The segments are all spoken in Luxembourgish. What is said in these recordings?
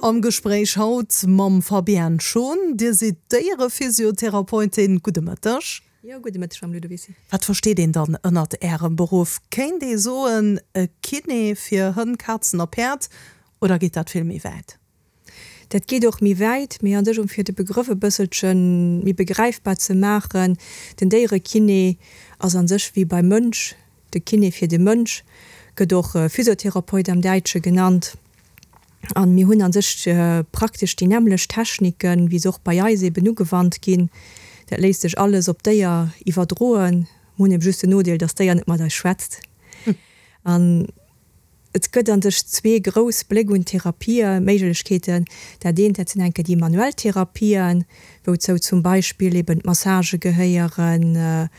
Am Gespréich haut mam Fabienne Schon. Dir sidd Déierephysiotherapeutin. Gudde Mëtteg. Jo, gudde Mëtteg, Mme Ludovicy. Wat versteet een dann ënnert Ärem Beruff? Kéint ee soen, e Kiné fir Hënn, Kazen a Päerd, oder geet dat vill méi wäit? Dat geet och méi wäit, mee an sech, um fir de Begrëff e bësselche méi begräifbar ze maachen, den Déierekiné ass an sech wéi beim Mënsch de Kiné fir de Mënsch, gëtt och Physiotherapeut am Däitsche genannt. An mir hunn a sech praktesch déi nämmlecht Techniken, wéi se och bei eis eben ugewannt ginn. Dat léisst sech alles op d'Déier iwwerdroen. Mir hunn eben just den Nodeel, dass d'Déier net mat eis schwätzt. An et gëtt a sech zwee grouss Bléck un Therapieméiglechkeeten. Dat eent, dat sinn enke déi manuell Therapien, wouzou zum Beispill eben d'Massagë gehéieren,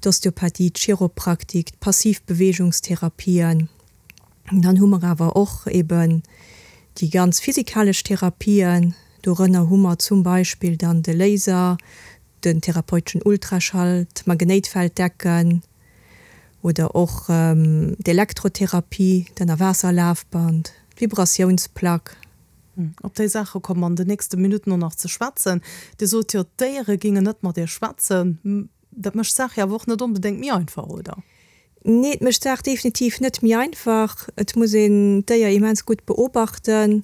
d'Osteopathie, d'Chiropraktik, d'Passivbewegungstherapien. Dann hu mer awer och eben déi ganz physikalesch Therapien. Dorënner hu mer zum Beispill dann de Laser, den therapeuteschen Ultraschall, d'Magnéitfelddecken oder och d'Elektrotherapie, d'Ënnerwaasserlafband, d'Vibratiounsplack. Op déi Saache komme mer an den nächste Minutten och nach ze schwätzen. Dir sot jo, d'Déiere géingen net mat Iech schwätzen. Dat mécht d'Saach jo awer och net onbedéngt méi einfach, oder? Nee, et mécht d'Saach definitiv net méi einfach. Et muss een d'Déier immens gutt beobachten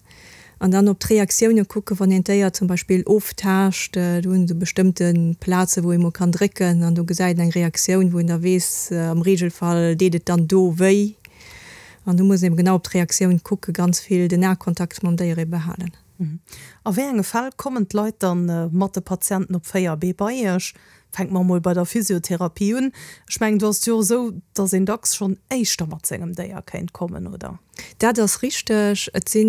an dann op d'Reaktioune kucken, wann een d'Déier zum Beispill oftaascht. Do hunn se bestëmmte Plaze wou ee mol kann drécken an do gesäit een eng Reaktioun, wou een da weess, am Reegelfall deet et dann do wéi. An do muss een eben genau op d'Reaktioun kucken, ganz vill den Akontakt mam Déier ebe halen. A wéi enge Fäll kommen d'Leit dann mat de Patienten op 4 Bee bei Iech? Fänke mer emol bei der Physiotherapie un. Ech mengen, do ass et jo och esou, dass een dacks schonn éischter mat sengem Déier kéint kommen, oder? Dat ass richteg. Et si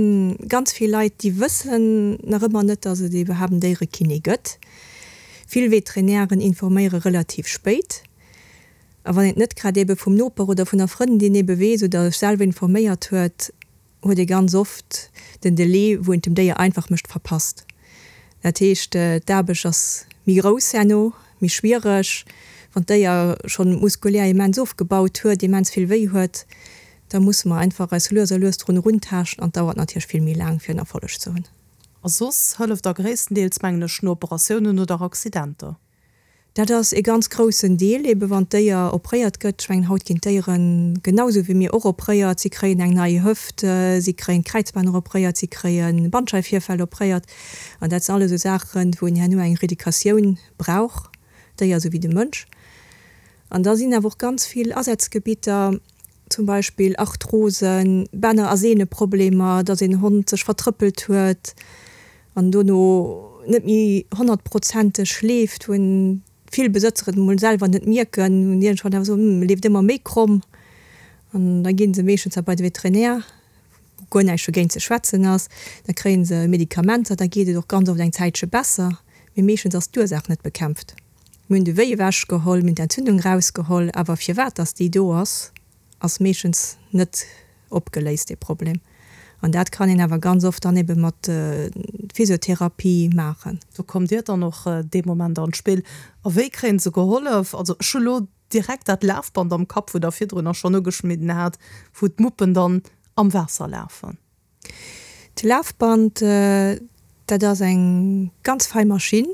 ganz vill Leit, déi wëssen nach ëmmer net, dass et iwwerhaapt en Déierekiné gëtt. Vill Veterinären informéiere relativ spéit. A wann een et net grad ebe vum Noper oder vun der Frëndin ebe weess oder sech selwer informéiert huet, huet ee ganz oft den Delai, wou een et dem Déier einfach mécht, verpasst. Dat heescht, d'Aarbecht ass méi grouss herno, méi schwiereg. Wann d'Déier schonn muskulär immens ofgebaut huet, immens vill wéi huet, da musse mer einfach eis lues a lues drun eruntaaschten an et dauert natierlech vill méi laang, fir en Erfolleg ze hunn. A soss hëlleft der gréisstendeels, mengen ech, no Operatiounen oder Accidenter. Dat ass ee ganz groussen Deel, ebe wann d'Déier opréiert gëtt. Ech mengen, haut ginn d'Déiere genau esou wéi mir och opréiert. Si kréien eng nei Hëft, si kréien d'Kräizbänner opréiert, si kréie Bandscheifvirfäll opréiert. An dat sinn alles esou Saachen, wou een herno eng Reeducatioun brauch, d'Déier esou wéi de Mënsch. An da sinn awer och ganz vill Asazgebitter, zum Beispill Arthrosen, Bänner a Sehneproblemer, datt een Hond sech vertrëppelt huet an dono net méi honnertprozenteg leeft, wou vill Besëtzer et emol selwer net mierken, hunn iergendwann awer soen, hm, e leeft ëmmer méi kromm. An da gi se meeschtens da bei de Veterinär, wou guer näischt dogéint ze schwätzen ass. Da kréie se Medikamenter, da geet et och ganz oft eng Zäitche besser, mee meeschtens ass d'Ursaach net bekämpft. Mir hunn de Wéi ewech geholl, mir hunn d'Entzündung rausgeholl, awer firwat dass déi do ass, ass meeschtens net opgeléist, dee Problem. An dat kann een awer ganz oft dann ebe mat Physiotherapie maachen. Do kommt Dir dann och dee Moment an d'Spill. A wéi kréien se gehollef? Also ech hu lo direkt dat Lafband am Kapp, wou Der virdrunner schonn ugeschnidden hat, wou d'Muppen dann am Waasser lafen. D'Lafband, dat ass eng ganz fei Maschinn.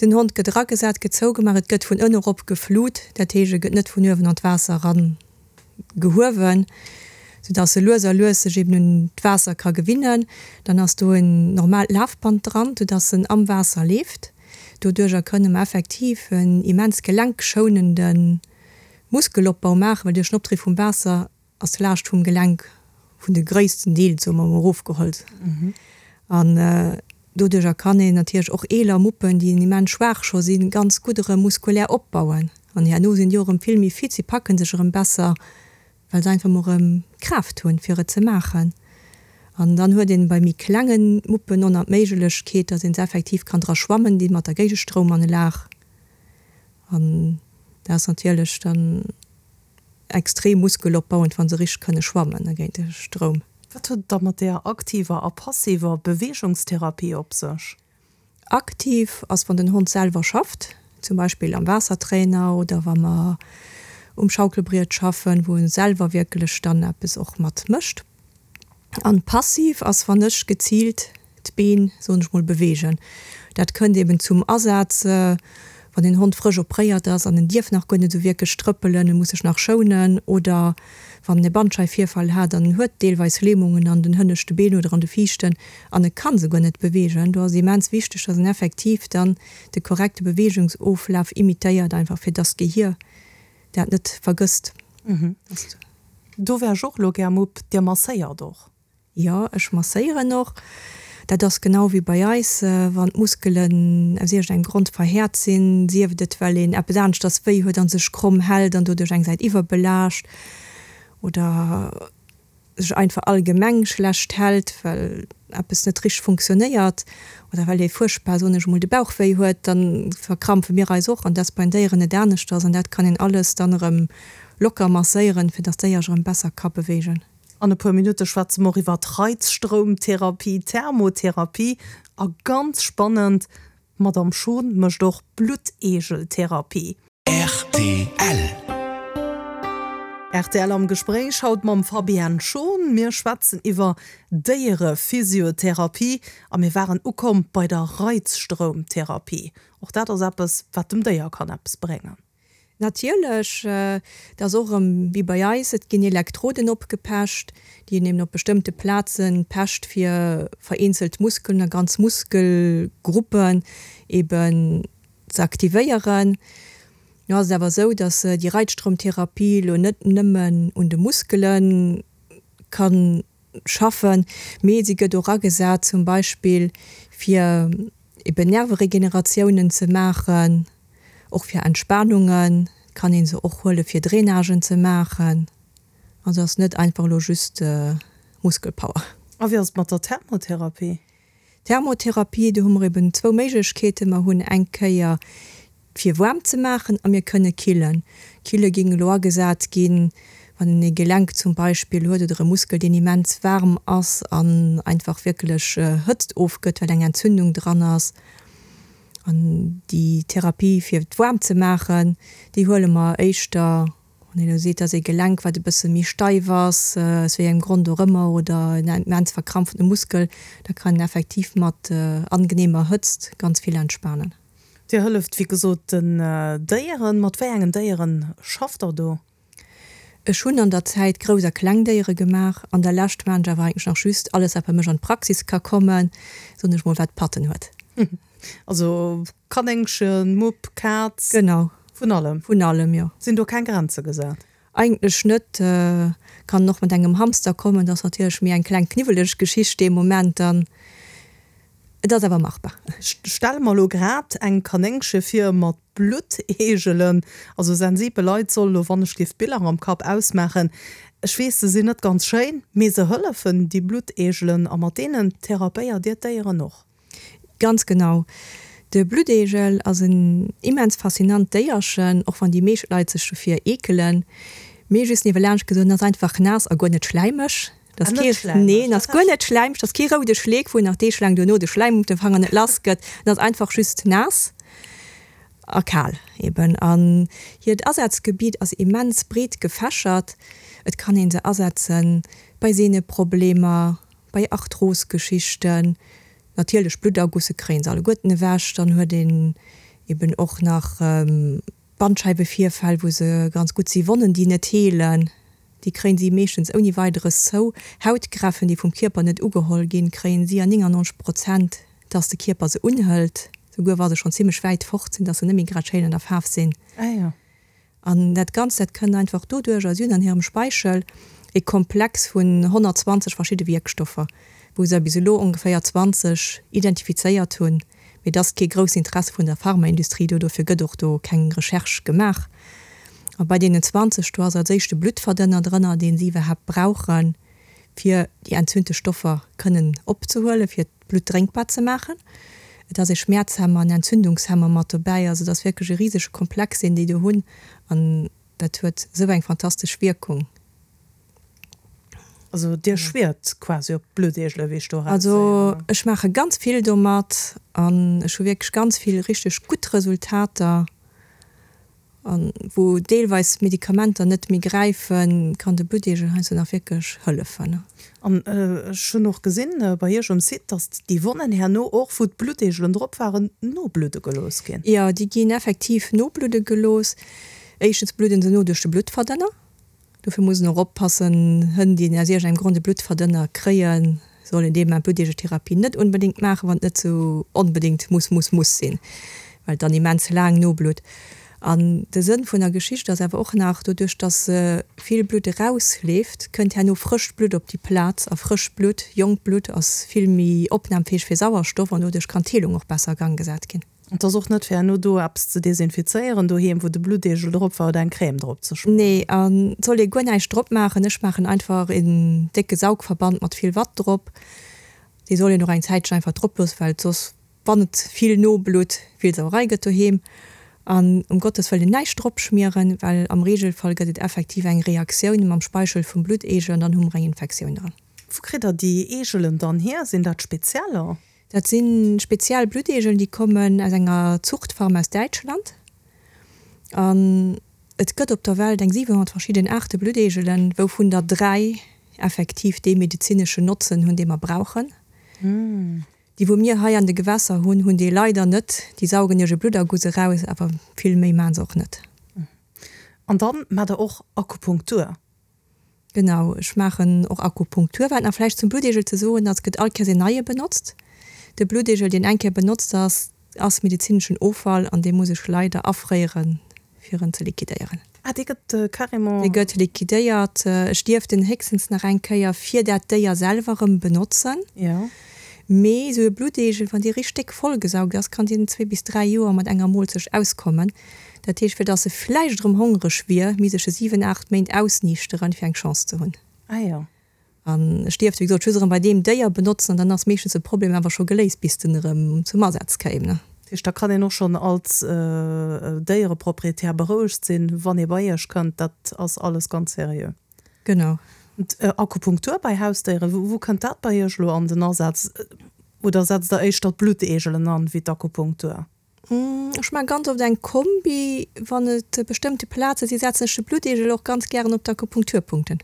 Den Hond gëtt eragesat, gëtt zougemaach, et gëtt vun ënne erop geflut, dat heescht e gëtt net vun uewen an d'Waasser eran gehuewen, soudass e lues a lues sech eben un d'Waasser ka gewinnen. Dann ass do en normaalt Lafband dran, soudass en am Waasser leeft. Doduercher kënne mer effektiv en immens gelenkschonende Muskelopbau maachen, well duerch den Opdriff vum Waasser ass d'Laascht vum Gelenk vun de gréissten Deel, soe mer emol, erofgeholl. An doduercher kann een natierlech och eeler Muppen, déi immens schwaach scho sinn, ganz gutt erëm muskulär opbauen. An herno sinn déi och erëm vill méi fit, si packe sech erëm besser, well se einfach emol erëm d'Kraaft hunn, fir et ze maachen. An dann huet een bei méi klenge Muppen och nach d'Méiglechkeet, datt een se effektiv kann dra schwammen, déi mat der Géigestroumanlag. An dat ass natierlech dann extrem muskelopbauend, wa se richteg kënne schwammen géint de Stroum. Wat huet et da mat där aktiver a passiver Beweegungstherapie op sech? Aktiv ass, wann den Hond selwer schafft, zum Beispill am Waassertrainer oder wa mer um Schaukelbriet schaffen, wou en selwer wierklech dann eppes och mat mécht. An passiv ass, wann ech geziilt d'Been, soen ech mol, beweegen. Dat kënnt eben zum Asaz, wann een Hond frësch opréiert ass an en dierf nach guer net esou wierklech trëppelen, e muss sech nach schounen, oder wann en e Bandscheifvirfall hat an en huet deelweis Lähmungen an den hënneschte Been oder an de viischten an e ka se guer net beweegen. Do ass et immens wichteg, dass en effektiv dann de korrekte Beweegungsoflaf imitéiert, einfach fir dass d'Gehier dat net vergësst. Do wär ech och elo gär Mupp. Dir masséiert och? Jo, ech masséieren och. Dat ass genau wéi bei eis, wann d'Muskelen aus iergendengem Grond verhäert sinn, sief et well een eppes aneschters wéi huet a sech kromm hält an doduerch eng Säit iwwerbelaascht oder sech einfach allgemeng schlecht hält, well eppes net richteg funktionéiert oder well ee fuerchtbar, soen ech emol, de Bauch wéi huet, da verkrampfe mir eis och an dat ass bei den Déieren net aneschters an dat kann een alles dann erëm locker masséieren, fir dass d'Déier sech erëm besser ka beweegen. An e puer Minutte schwätze mer och iwwer Reizstroumtherapie, Thermotherapie a ganz spannend, d'Madame Schon mécht och Blutteegeltherapie. Rtl. Rtl am Gespréich haut mam Fabienne Schon. Mir schwätzen iwwer Déierephysiotherapie a mir waren ukomm bei der Reizstroumtherapie. Och dat ass eppes, wat dem Déier kann eppes bréngen. Natierlech, et ass och erëm wéi bei eis, et ginn Elektroden opgepecht, déi een eben op bestëmmte Plaze pecht, fir vereenzelt Muskelen a ganz Muskelgruppen eben ze aktivéieren. Nu ass et awer esou, datt déi Reizstroumtherapie elo net nëmmen un de Muskele ka schaffen, mee si gëtt och agesat zum Beispill fir eben Nerveregeneratiounen ze maachen. Och fir Entspanungen kann een se och huelen, fir Drainagen ze maachen. Also ass net einfach elo just Muskelpower. A wéi ass et mat der Thermotherapie? Thermotherapie, do hu mer eben zwou Méiglechkeeten. Mer hunn eng Kéier fir waarm ze maachen a mir kënne killen. Kille géing elo agesat ginn, wann een ee Gelenk zum Beispill huet oder e Muskel, deen immens waarm ass an einfach wierklech Hëtzt ofgëtt, well eng Entzündung dran ass. An déi Therapie fir et waarm ze maachen, déi huele mer éischter, wann een elo seet, dass ee Gelenk, wat e bësse méi steif ass, aus wéi engem Grond och ëmmer, oder en immens verkrampfte Muskel, da kann een effektiv mat angeneemer Hëtzt ganz vill entspanen. Dir hëlleft wéi gesot den Déieren. Mat wéi engen Déieren schafft der do? Ech hunn an der Zäit grouss a kleng Déiere gemaach. An der Lescht maan ech awer eigentlech nach just alles wat bei mech an d'Praxis ka kommen, soen ech mol, wat Patten huet. Also Kanéngchen, Mupp, Kaz? Genau. Vun allem? Vun allem, jo. Sinn do keng Grenze gesat? Eigentlech net. Kann och mat engem Hamster kommen, dat ass natierlech méi eng kleng kniwweleg Geschicht dee Moment dann. Et ass awer machbar. Ech stelle mer elo grad eng Kanéngche vir mat Blutteegelen. Also sensibel Leit sollen elo, wann ech géif d'Biller am Kapp ausmaachen, ech weess se sinn net ganz schéin, mee se hëllefen, déi Blutteegelen, a mat deenen therapéiert Dir d'Déieren och? Ganz genau. De Blutteegel ass en immens faszinant Déierchen, och wann déi meescht Leit sech dofir eekelen. Mee just niewelaanscht gesot, en ass einfach naass a guer net schläimeg. Dat ass kee, neen, ass guer net schläimeg, dat ass kee roude Schleek, wou een nach deeglaang duerno de Schläim op de Fanger net lass gëtt. En ass einfach just naass a kal eben. An hiert Asazgebiet ass immens breet gefächert. Et kann ee se asetze bei Sehneproblemer, bei Arthrosgeschichten, natierlech Bluttergusse kréien se alleguerten ewech. Dann huet een eben och nach Bandscheiwevirfäll, wou se ganz gutt si, Wonnen, déi net heelen. Déi kréien si meeschtens ouni Weideres zou. Hautgräffen, déi vum Kierper net ugeholl ginn, kréien si an 99 Prozent, dass de Kierper se unhëlt, souguer wa se schonn zimmlech wäit fort sinn, dass se net méi grad schéin an der Faarf sinn. An dat Ganzt, dat kënnt einfach doduerch, si hunn an hirem Speichel e Komplex vun 120 verschidde Wierkstoffer, wou se bis elo ongeféier 20 identifizéiert hunn. Mee et ass kee grousst Interesse vun der Pharmaindustrie do, dofir gëtt och do keng Recherche gemaach. A bei deenen 20, do ass als éischt de Bluttverdënner drënner, dee si iwwerhaapt brauchen, fir déi entzündlech Stoffer kënnen opzehuelen, fir d'Blutt drénkbar ze maachen. Et ass ee Schmäerzhemmer, en Entzündungshemmer mat dobäi. Also et ass wierklech e risege Komplex, deen déi do hunn. An dat huet esou eng fantastesch Wierkung. Also dir schwiert quasi op d'Blutteegele wéi ech do eraushéieren? Also ech maache ganz vill domat an ech hu wierklech ganz vill richteg gutt Resultater. An wou deelweis Medikamenter net méi gräifen, kann de Blutteegel heiansdo nach wierklech hëllefen. An ech hunn och gesinn bei Iech um Site, dass déi Wonnen herno och, wou d'Blutteegelen drop waren, nobludde gelooss ginn. Jo, déi ginn effektiv nobludde gelooss. Éischtens bludden se no duerch de Bluttverdënner. Dofir muss een och oppassen, Hënn, déi aus iergendengem Grond e Bluttverdënner kréien, sollen dee Moment d'Blutteegeltherapie net onbedéngt maachen, wann et net sou onbedéngt muss, muss, muss sinn, well et dann immens laang noblutt. An de Sënn vun der Geschicht ass awer och nach, doduerch dass vill Blutt erausleeft, kënnt herno frëscht Blutt op déi Plaz, a frëscht Blutt, jonkt Blutt ass vill méi opnamfäeg fir Sauerstoff an doduerch kann d'Heelung och besser a Gang gesat ginn. Et ass och net fir herno do eppes ze desinfizéieren doheem, wou de Blutteegel drop war oder eng Crème drop ze schmieren. Nee, an et soll ee guer näischt drop maachen. Ech maachen einfach een décke Saugverband mat vill Watt drop. Dee soll een och eng Zäitchen einfach drop loossen, well et soss, wann et vill noblutt, vill Sauerei gëtt doheem. An um Gottes Wëllen näischt drop schmieren, well am Regelfall gëtt et effektiv eng Reaktioun mam Speichel vum Blutteegel an dann hu mer eng Infektioun dran. Wou kritt der déi Eegelen dann hier? Sinn dat spezieller? Dat si speziell Blutteegeln, déi kommen aus enger Zuchtfarm aus Däitschland. An et gëtt op der Welt eng 700 verschidden Aarte Blutteegelen, wouvun der 3 effektiv dee medezineschen Notzen hunn, dee mer brauchen. Déi wou mir hei an de Gewässer hunn, hunn dee leider net. Déi saugen iech e Blutterguss eraus, awer vill méi maachen se och net. An dann maacht der och Akupunktur? Genau, ech maachen och Akupunktur. Wat nach vläicht zum Blutteegel ze soen ass, gëtt all Kéiers een neie benotzt. De Blutteegel, deen eng Kéier benotzt ass, ass medezineschen Offall an dee muss ech leider afréieren, fir en ze liquidéieren. Ah, dee gëtt carrément. Dee gëtt liquidéiert. Ech dierf den héchstens nach eng Kéier fir dat Déier selwer erëm benotzen. Jo. Mee esou e Blutteegel, wann dee richteg déck vollgesaugt ass, kann deen zwee bis dräi Joer mat enger Moolzecht auskommen. Dat heescht, fir dass e vläicht erëm hongreg wier, misst ech e 7, 8 Méint ausniichteren, fir eng Chance ze hunn. Ah jo. An ech dierft, wéi gesot, just erëm bei deem Déier benotzen an dann ass meeschtens de Problem awer scho geléist, bis den erëm zum Asaz kéim, ne. Dat heescht, da kann een och schonn als Déiereproprietär berouegt sinn, wann ee bei Iech kënnt, dat ass alles ganz seriö. Genau. Akupunktur bei Hausdéieren, wou kënnt dat bei Iech elo an den Asaz? Oder setzt Der éischter d'Blutteegelen an, wéi d'Akupunktur? Ech maache ganz oft eng Kombi, wann et bestëmmte Plaze sinn, setzen ech de Blutteegel och ganz gären op d'Akupunkturpunkten.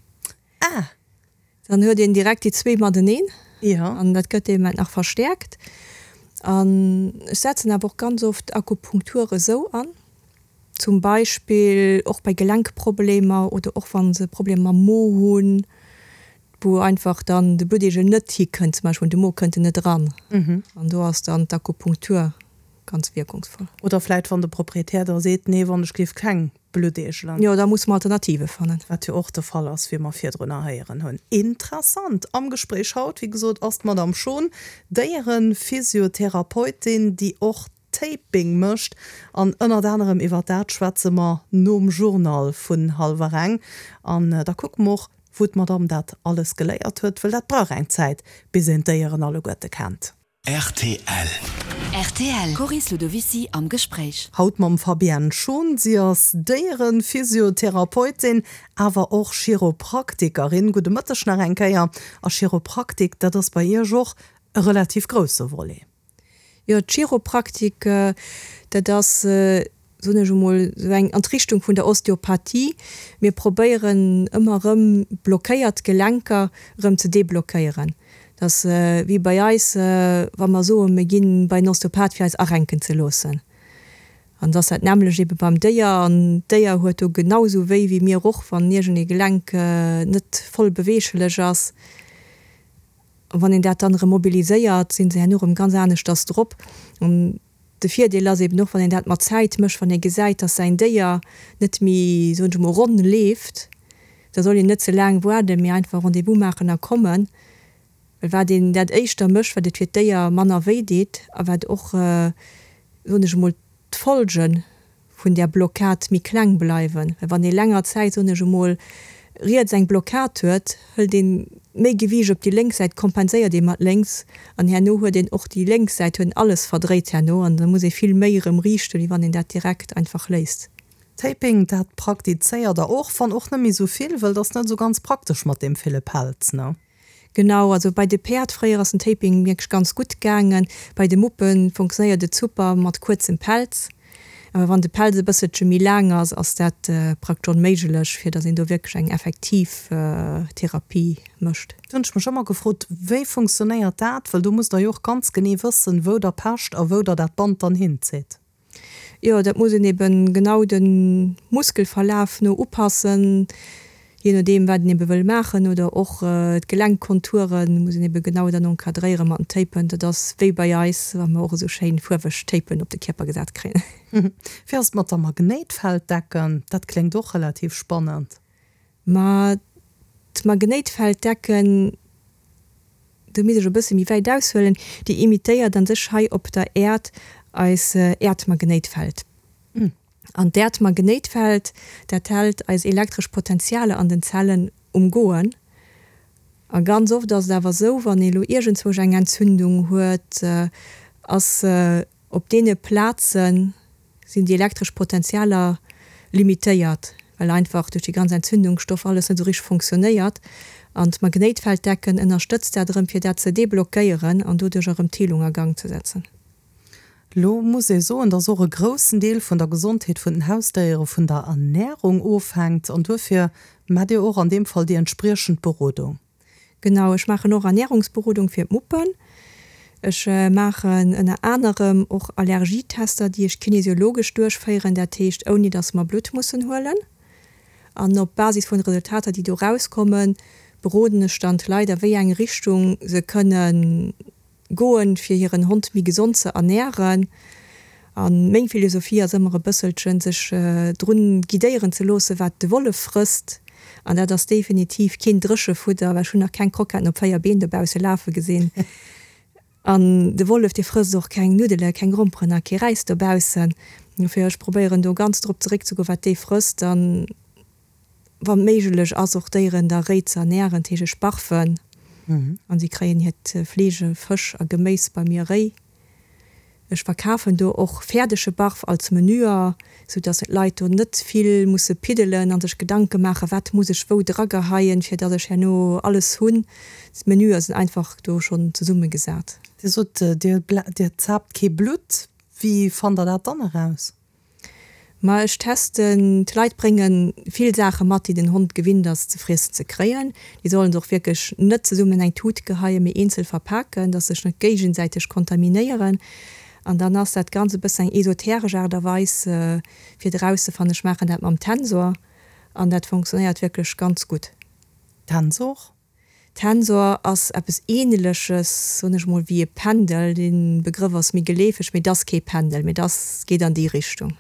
Ah! Dann huet een direkt déi zwee mateneen. Jo. An dat gëtt dee Moment nach verstäerkt. An ech setzen awer och ganz oft Akupunktur esou an, zum Beispill och bei Gelenkproblemer oder och wa se Problemer mam Mo hunn, wou einfach dann de Blutteegel net hikënnt, zum Beispill un de Mo kënnt en net eran. An do ass dann d'Akupunktur ganz wierkungsvoll. Oder vläit wann de Proprietär da seet, nee, wann ech géif keng Blutteegelen. Jo, da musse mer Alternative fannen. Wat jo och de Fall ass, wéi mer virdrunner héieren hunn. Interessant am Gespréich haut, wéi gesot, ass d'Madame Schon, Déierenphysiotherapeutin, déi och Taping mécht. An ënnert anerem iwwer dat schwätze mer nom Journal vun hallwer eng. An da kucke mer och, wou d'Madame dat alles geléiert huet, wëll dat brauch eng Zäit, bis een d'Déieren alleguerte kennt. Rtl. Rtl, Coris Ludovicy am Gespréich. Haut mam Fabienne Schon. Si ass Déierenphysiotherapeutin, awer och Chiropraktikerin. Gudde Mëtteg nach eng Kéier. A Chiropraktik, dat ass bei Iech och e relativ grousse Volet. Jo, d'Chiropraktik, dat ass, soen ech emol, esou eng an d'Richtung vun der Osteopathie. Mir probéieren ëmmer erëm blockéiert Gelenker erëm ze deblockéieren. Dat ass wéi bei eis, wa mer soen, mir ginn bei en Osteopath fir eis arenken ze loossen. An et ass dat nämmlecht ebe beim Déier. An d'Déier huet do genau esou wéi wéi mir och, wann iergend ee Gelenk net voll beweeglech ass. An wann een dat dann erëm mobiliséiert, sinn se herno erëm ganz aneschters drop. An de Virdeel ass eben och, wann een dat mat Zäit mécht, wann ee gesäit, dass säin Déier net méi, soen ech emol, ronn leeft, da soll een net ze laang waarden, mee einfach Rendez-vous maachen a kommen. Well wat een dat éischter mécht, wat et fir d'Déier manner wéi deet a wat och, soen ech emol, d'Folgen vun där Blockad méi kleng bleiwen. Well wann ee länger Zäit, soen ech emol, riets eng Blockad huet, hëlt een méi Gewiicht op déi lénks Säit, kompenséiert ee mat lénks an herno huet een och déi lénks Säit huet alles verdréit herno an da muss ee vill méi erëm riichten, wéi wann een dat direkt einfach léisst. Taping, dat praktizéiert der och, wann och net méi sou vill, wëll et ass net sou ganz praktesch mat deem ville Pelz, ne? Genau, also bei de Päerd fréier ass den Taping wierklech ganz gutt gaangen. Bei de Muppe funktionéiert et super mat kuerzem Pelz. Awer wann de Pelz e bësselche méi laang ass, ass dat praktesch onméiglech, fir datt een do wierklech eng effektiv Therapie mécht. Do hunn ech mech ëmmer gefrot, wéi funktionéiert dat? Well do musst der jo och ganz genee wëssen, wou der pecht a wou der dat Band dann hinzitt. Jo, dat muss een eben genau de Muskelverlaf no upassen, jee nodeem wat een ebe wëll maachen oder och d'Gelenkkonture muss een ebe genau dann encadréiere mat den Tapen. Dat ass wéi bei eis, wa mer och esou schéin fuerweg Tapen op de Kierper gesat kréien. Wéi ass et mat der Magnéitfelddecken? Dat kléngt och relativ spannend. Ma d'Magnéitfelddecken, do misst ech e bësse méi wäit aushuelen, déi imitéiert an sech hei op der Äerd eis Äerdmagnéitfeld. An d'Äerdmagnéitfeld, dat hält eis elektresch Potentialer an den Zellen um Goen. A ganz oft ass et awer esou, wann ee lo iergendzwousch eng Entzündung huet, ass Op deene Plaze sinn déi elektresch Potentialer limitéiert, well einfach duerch déi ganz Entzündungsstoff alles net esou richteg fonctionnéiert. An d'Magnéitfelddecken ënnerstëtzt dat erëm, fir dat ze deblockéieren an doduerch erëm d'Heelung a Gang ze setzen. Lo muss ee soen, dass och e groussen Deel vun der Gesondheet vun den Hausdéiere vun der Ernärung ofhänkt an duerfir maacht Dir och an deem Fall déi entspriechend Berodung. Genau, ech maachen och Ernährungsberodung fir d'Muppen. Ech maachen ënner anerem och Allergietester, déi ech kinesiologesch duerchféieren, dat heescht ouni dass mer Blutt mussen huelen. An op Basis vun de Resultater, déi do rauskommen, beroden ech dann d'Leit a wéi eng Richtung se kënnen Goen, fir hiren Hond méi gesond ze ernären. A meng Philosophie ass ëmmer e bësselchen, sech drun guidéieren ze loossen, wat de Wollef frësst. An dat ass definitiv keen Dréchefudder, well ech hunn nach keng Kroketten op 4 Been dobausse lafe gesinn. An de Wollef, dee frësst och keng Nuddele, keng Gromperen a kee Räis dobaussen. Dofir, ech probéieren do ganz drop zeréckzegoen, wat dee frësst. An wann méiglech ass, och d'Déieren da réi ze ernären, dat heescht ech barfen an si kréien hiert Fleesch, Fësch a Geméis bei mir réi. Ech verkafen do och fäerdege Barf als Menüer, sou dass d'Leit do net vill musse piddelen an sech Gedanke maachen, wat muss ech wou drageheien, fir dass ech herno alles hunn. D'Menüer sinn einfach do schonn zesummegesat. Dir sot, Dir zaapt kee Blutt. Wéi fannt Der dat dann eraus? Ma ech testen, d'Leit brénge vill Saache mat, déi den Hond gewinnt ass ze friessen ze kréien. Déi sollen se och wierklech net zesummen an eng Tut geheien, mee eenzel verpaken, dass se sech net géigesäiteg kontaminéieren. An dann ass dat Ganzt e bëssen eng esoteresch Aart a Weis, fir et erauszefannen. Ech maachen dat mam Tensor an dat funktionéiert wierklech ganz gutt. Tensor? Tensor ass eppes Ähneleches, soen ech mol, wéi e Pendel. Dee Begrëff ass méi geleefeg, mee et ass kee Pendel, mee et ass, geet an déi Richtung.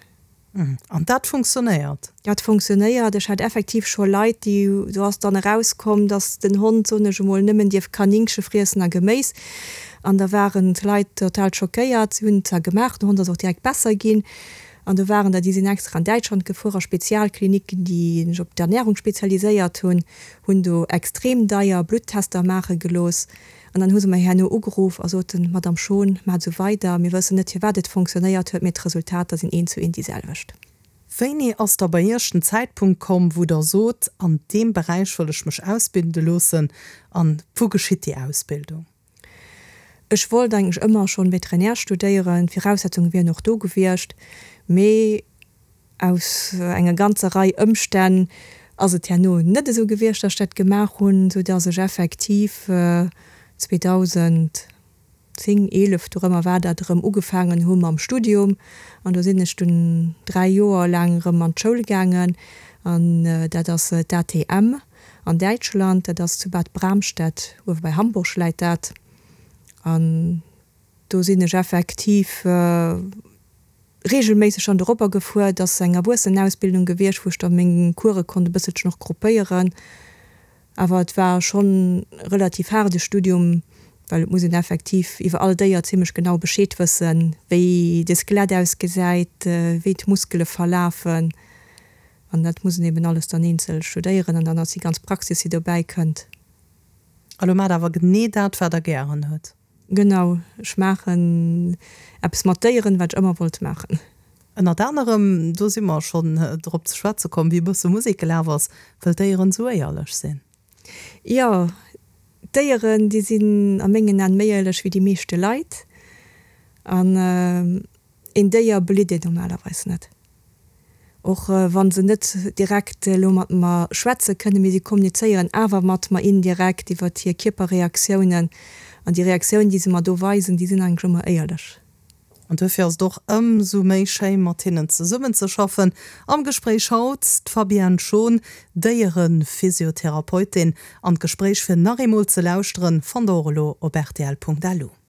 An dat funktionéiert? Dat funktionéiert. Ech hat effektiv scho Leit, déi, do ass dann erauskomm, dass den Hond, soen ech emol, nëmmen dierf Kanéngche friessen a Geméis. An da waren d'Leit total schockéiert. Si hunn et zwar gemaach, den Hond ass och direkt besser ginn. An do waren der, déi sinn extra an Däitschland gefuer a Spezialkliniken, déi sech op d'Ernärung spezialiséiert hunn, hunn do extrem deier Bluttester maache gelooss. An dann hu se mer herno ugeruff a soten, Madame Schon, maacht esou weider, mir wëssen net firwat et fonctionnéiert huet, mee d'Resultater sinn eent zu eent déi selwecht. Wéini ass da bei Iech den Zäitpunkt komm, wou Der sot, an deem Beräich wëll ech mech ausbilde loossen? An wou geschitt déi Ausbildung? Ech wollt eigentlech ëmmer schonn Veterinär studéieren, d'Viraussetzunge wieren och do gewiescht, mee aus enger ganzer Rei Ëmstänn ass et herno net esou gewiescht, datt ech dat gemaach hunn, sou datt ech effektiv 2010, 11, dorëmmer war dat, erëm ugefaangen hu mam Studium. An do sinn ech dunn 3 Joer laang erëm an d'Schoul gaangen an dat ass d'ATM. An Däitschland, dat ass zu Bad Bramstedt, uewe bei Hamburg läit dat. An do sinn ech effektiv reegelméisseg dann doropper gefuer. Et ass eng Erwuessenenausbildung gewiescht, wou ech da meng Course konnt e bësselchen och gruppéieren. Awer et war schonn e relativ haarde Studium, well et muss een effektiv iwwer all Déier zimmlech genau Bescheed wëssen, wéi de Skelett ausgesäit, wéi d'Muskele verlafen. An dat muss een eben alles dann eenzel studéieren an dann ass déi ganz Praxis, déi dobäi kënnt. A lo maacht awer genee dat, wat Der gären hutt. Genau, ech maachen eppes mat Déieren, wat ech ëmmer wollt maachen. Ënnert anerem, do si mer schonn drop ze schwätze komm, wéi e bësse Musek gelaf ass, wëll d'Déieren esou éierlech sinn. Jo, d'Déieren, déi sinn a mengen Aen méi éierlech wéi déi meeschte Leit. An. Een Déier belitt een normalerweis net. Och wa se net direkt elo mat mer schwätze kënnen, mee si kommunizéieren awer mat mer indirekt iwwer hir Kierperreaktiounen. An déi Reaktiounen, déi se mer do weisen, déi sinn eigentlech ëmmer éierlech. An duerfir ass et och ëmsou méi schéi mat hinnen zesummenzeschaffen. Am Gespréich haut d'Fabienne Schon, Déierephysiotherapeutin. An d'Gespréich fir nach eemol ze lauschteren, fannt der och elo op rtl.lu.